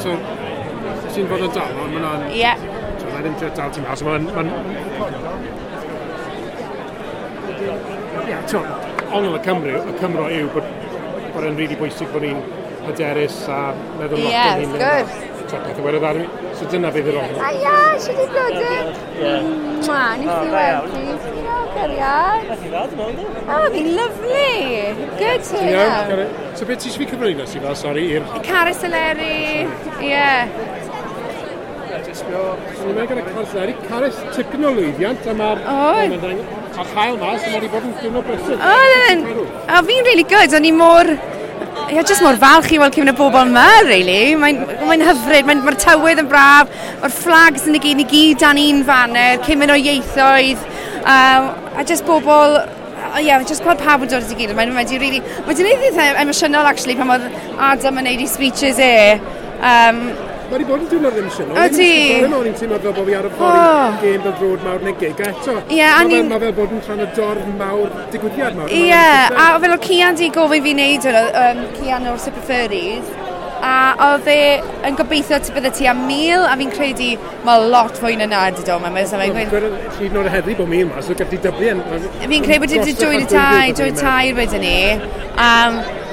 So, ti'n fod yn dal, ond mae'n... Ie. So, mae'n ddim dal ti'n mas, mae'n... Ie, ti'n ongl y Cymru, y Cymro yw bod e'n rili bwysig bod ni'n hyderus a meddwl lot Ie, o'n wrth gwrs. Ti'n peth o werydd arni. So dyna fydd yr ongl. A ia, siwt i blodyn. Mwa, nes i weld ti. Diolch, cariad. Nath i ddad, dwi'n meddwl. Oh, fi'n lovely. Good to Ti'n iawn? know. So beth ti eisiau fi cyflwyno si fel, sori, i'r... Carys Eleri, ie. Ni'n meddwl gyda Carys Eleri. Carys, tipyn o lwyddiant, a mae'r... Oedd. A chael mas, a mae wedi bod yn diwrnod brysur. Oedd yn... O, fi'n really good. O'n i mor... Ie, just mor falch i weld cymaint o bobl yma, really. Mae'n hyfryd, mae'r tywydd yn braf, mae'r flags yn y gyd, ni gyd dan un faner, cymaint o ieithoedd, a just bobl, ie, yeah, just gweld pawb yn dod at ei gilydd. Mae'n wedi really, mae wedi gwneud eitha emosiynol, actually, pan oedd Adam yn neud ei speeches e. Mae wedi bod yn diwrnod emosiynol. Ydi. O'n i'n teimlo fel bod fi ar y ffordd i gêm fel drod mawr neu gig, a eto. Ie, a ni'n- Mae fel bod yn rhan o dorf mawr, digwyddiad mawr. Ie, a fel oedd Cian di gofyn fi wneud hwnna, Cian o'r Super Furries, a oedd e yn gobeithio bydde ti am 1,000, a fi'n credu mae lot fwy na na di dod yma. So mae'n gweud- Hyd yn oed heddi bod 1,000 mas, so gallu dyblu yn... Fi'n credu bod wedi 2 i 3, 2 i 3 wedyn ni.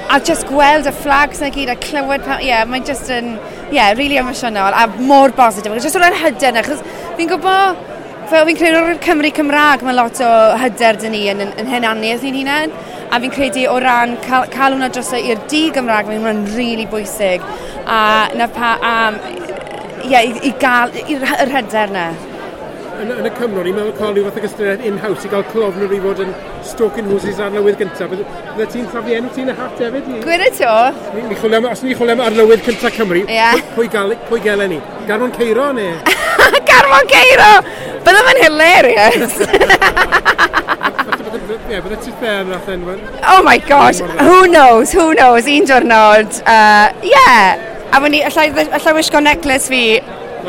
A just gweld y flags na gyd a clywed, ie, yeah, mae'n just yn, yeah, really emosiynol a mor bositif. Just o'r hyder na, achos fi'n gwybod, fel fi'n credu o'r Cymru Cymraeg, mae lot o hyder dyn ni yn hunaniaeth ni'n hunain. A fi'n credu o ran cael hwnna dros i'r di Gymraeg, mae'n hwnna'n really bwysig. A na pa, ie, i gael yr hyder na. Yn y Cymro, ni'n meddwl cael rhyw fath o gystadleuaeth in-house i gael clofnwr i fod yn stoking horses arlywydd gyntaf. Bydde ti'n taflu enw ti yn y hat hefyd? Gwir y to? Ni chwilio am, os ni'n chwilio am arlywydd cyntaf Cymru, Ie. pwy gelen ni? Garmon Ceiro neu? Garmon Ceiro! Bydde fe'n hilarious. Ie, bydde ti'n fair nath enw. Oh my gosh, who knows, who knows, un diwrnod. Yeah, a fyny, allai wisgo necklace fi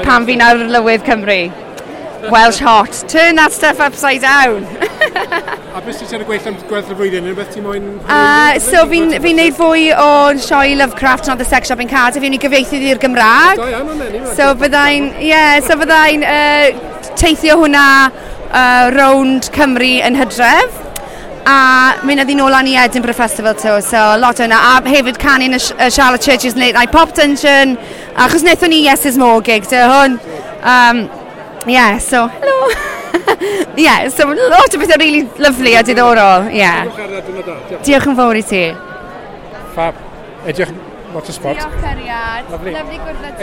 pan fi'n arlywydd Cymru. Welsh hot. Turn that stuff upside down. A beth sy'n ar y gweill am gweddill y flwyddyn? Unrhyw beth ti'n moyn... So fi'n neud fwy o sioe Lovecraft and the Sex Shop in Cardiff. Fi'n ei gyfieithu i'r Gymraeg. Da iawn, o'n enw. So byddai'n, yeah, so byddai'n teithio hwnna rownd Cymru yn hydref. A mynd â nôl lan i Edinburgh Festival too, so lot o hwnna. A hefyd canu yn y Charlotte Church's Late Night Pop Dungeon. Achos wnaethon ni Yes Is More gig, so hwn. Yeah, so, hello. Yeah, so lot o bethau really lovely a diddorol, yeah. Diolch yn fawr i ti. Fab. Edrych lot o sport. Diolch, cariad. Lovely. Lovely gwrdd â ti.